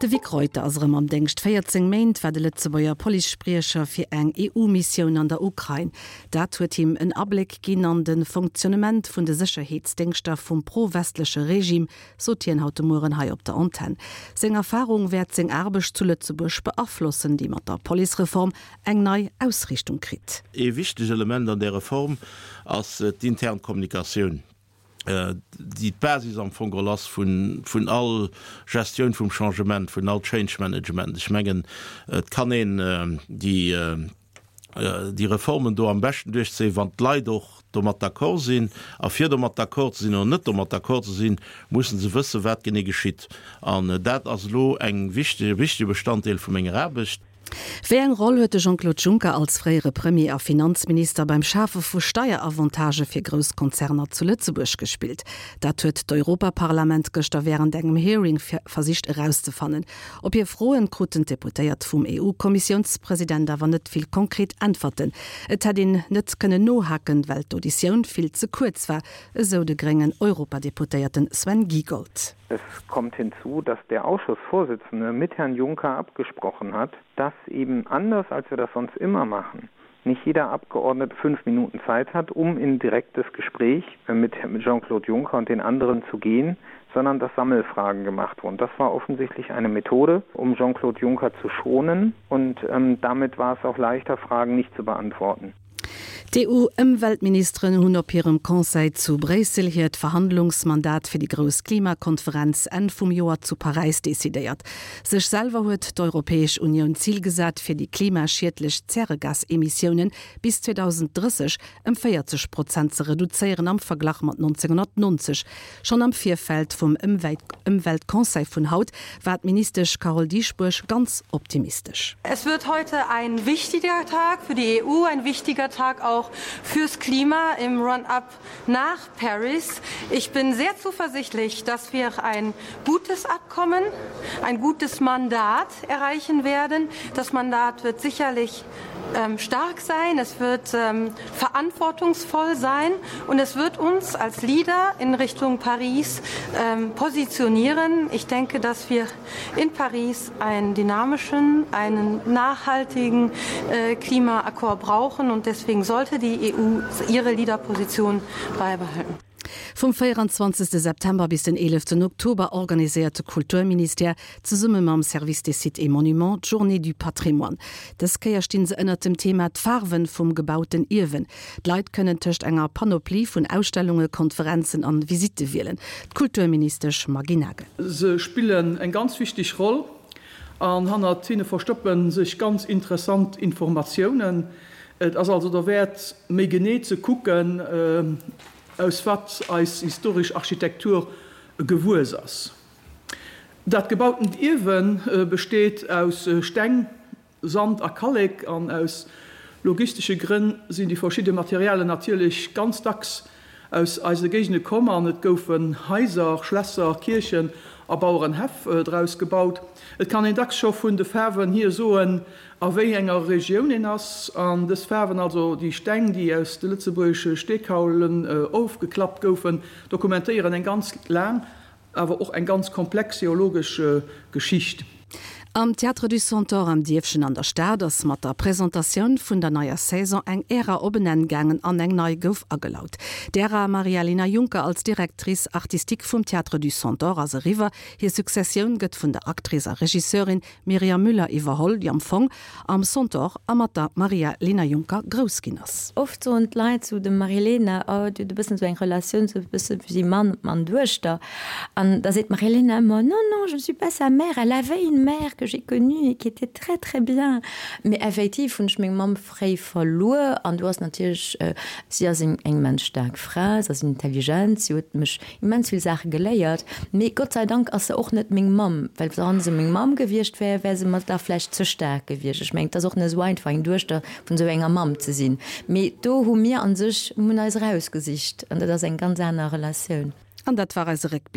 De Vic Reuter ass erëm am Déngscht. 14 Méint war de Lëtzebuerger Policespriecher fir eng EU-Missioun an der Ukrain. Dat huet him en Abléck ginn an de Fonctionnement vun de Sécherheetsdéngschter vum pro-westleche Regime, sot hien haut de Mueren hei op der Antenn. Seng Erfarung wäert seng Aarbecht zu Lëtzebuerg beaflossen, déi mat der Policereform eng nei Ausriichtung kritt. Ee wichteg Element an där Reform ass d'intern Kommunikatioun, déi d'Basis am Fong geholl ass vun all Gestioun vum Changement, vun all Change Management. Ech mengen, et kann een déi déi Reformen do am beschten duerchzéien, wann d'Leit och domat d'accord sinn. A fir domat d'accord ze sinn oder net domat d'accord ze sinn, mussen se wëssen, wat genee geschitt. An dat ass elo eng wichteg, e wichtege Bestanddeel vu menger Aarbecht. Wéi eng Roll huet de Jean-Claude Juncker als fréiere Premier a Finanzminister beim Schafe vu Steieravantagë fir grouss Konzerner zu Lëtzebuerg gespillt? Dat huet d'Europaparlament gëschter wärend engem Hearing versicht erauszefannen. Op hir Froen kruten d'Deputéiert vum EU-Kommissiounspresident awer net vill konkret Äntwerten. Et hätt een net kënnen nohaken, well d'Auditioun vill ze kuerz war, esou de gréngen Europadeputéierten Sven Giegold. Es kommt hinzu, dass der Ausschussvorsitzende mit Herrn Juncker abgesprochen hat, dass eben anders als wir das sonst immer machen, nicht jeder Abgeordnete fünf Minuten Zeit hat, um in direktes Gespräch mit Jean-Claude Juncker und den anderen zu gehen, sondern dass Sammelfragen gemacht wurden. Das war offensichtlich eine Methode, um Jean-Claude Juncker zu schonen und ähm, damit war es auch leichter, Fragen nicht zu beantworten. D'EU-Ëmweltministeren hunn op hirem Conseil zu Bréissel hiert Verhandlungsmandat fir déi grouss Klimakonferenz Enn vum Joer zu Paräis decidéiert. Sech selwer huet d'Europäesch Unioun d'Zil gesat, fir déi klimaschiedlech Zäregasemissiounen bis 2030 ëm 40 Prozent ze reduzéieren am Verglach mat 1990. Schonn am Virfeld vum Ëmweltconseil vun haut war d'Ministesch Carole Dieschbourg ganz optimistesch. Es wird heute ein wichtiger Tag für die EU, ein wichtiger Tag auch fürs Klima im Run-up nach Paris. Ich bin sehr zuversichtlich, dass wir ein gutes Abkommen, ein gutes Mandat erreichen werden. Das Mandat wird sicherlich ähm, stark sein, es wird ähm, verantwortungsvoll sein und es wird uns als Leader in Richtung Paris ähm, positionieren. Ich denke, dass wir in Paris einen dynamischen, einen nachhaltigen äh, Klimaakord brauchen und deswegen sollte die EU ihre Leaderposition beibehalten. Vum 24 September bis den 11 Oktober organiséiert de Kulturministère zesumme mam Service des Sites et Monuments d'Journées du Patrimoine. Dës Kéier stinn se ënnert dem Thema D'Faarwen vum gebauten Ierwen. D'Leit kënnen tëscht enger Panoplie vun Ausstellunge, Konferenzen an Visitte wielen. D'Kulturministesch Maggy Nagel. Se spillen eng ganz wichteg Roll an hannert hinne verstoppe sech ganz interessant Informatiounen. Et ass also derwäert, méi genee ze kucken, aus wat eis historesch Architektur gewuess ass. Dat gebautent Ierwe besteet aus Steng, Sand a Kallek an aus logistesche Grënn sinn déi verschidde Materialen natierlech ganz dacks aus eise Géigende komm an et goufen Haiser, Schlässer, Kierchen a Bauerenhäff draus gebaut. Et kann een dacks scho vun de Faarwen hier soen, a wéi enger Regioun een ass. An dës Faarwen, also déi Steng, déi aus de lëtzebuergesche Steekaulen ofgeklappt goufen, dokumentéieren eng ganz laang Awer och eng ganz komplex geologesch Geschicht. Am Théâtre du Centaure am Dierfchen an der Stad ass mat der Presentatioun vun der neier Saison eng Ära op en Enn gaangen an eng nei gouf agelaut. D'Ära Maria-Lena Juncker als Directrice artistique vum Théâtre du Centaure ass eriwwer. Hir Successioun gëtt vun der Actrice a Regisseurin Myriam Müller iwwerholl, déi am Fong am Centaure a mat der Maria-Lena Juncker grouss ginn ass. Oft soen d'Leit zu dem Marilena, oh, dir hutt e bëssen esou eng Relatioun, esou e bësse wéi Mann an Duechter. An da seet d'Marilena ëmmer, non, non, je ne suis pas sa mère, elle avait une mère que j'ai connue et qui était très, très bien. Mee effektiv hunn ech meng Mamm fréi verluer an do ass natierlech, si ass eng immens staark Fra, si ass intelligent, si huet mech immens vill Saache geléiert, mee Gott sei Dank ass se och net meng Mamm, well wann se meng Mamm gewiescht wär, wär se mer da vläicht ze staark gewiescht. Ech mengen, et ass och net esou einfach eng Duechter vun esou enger Mamm ze sinn, mee do hu mir a sech, mir hunn eis erausgesicht an dat ass eng ganz aner Relatioun. An dat war eise Réckbléck.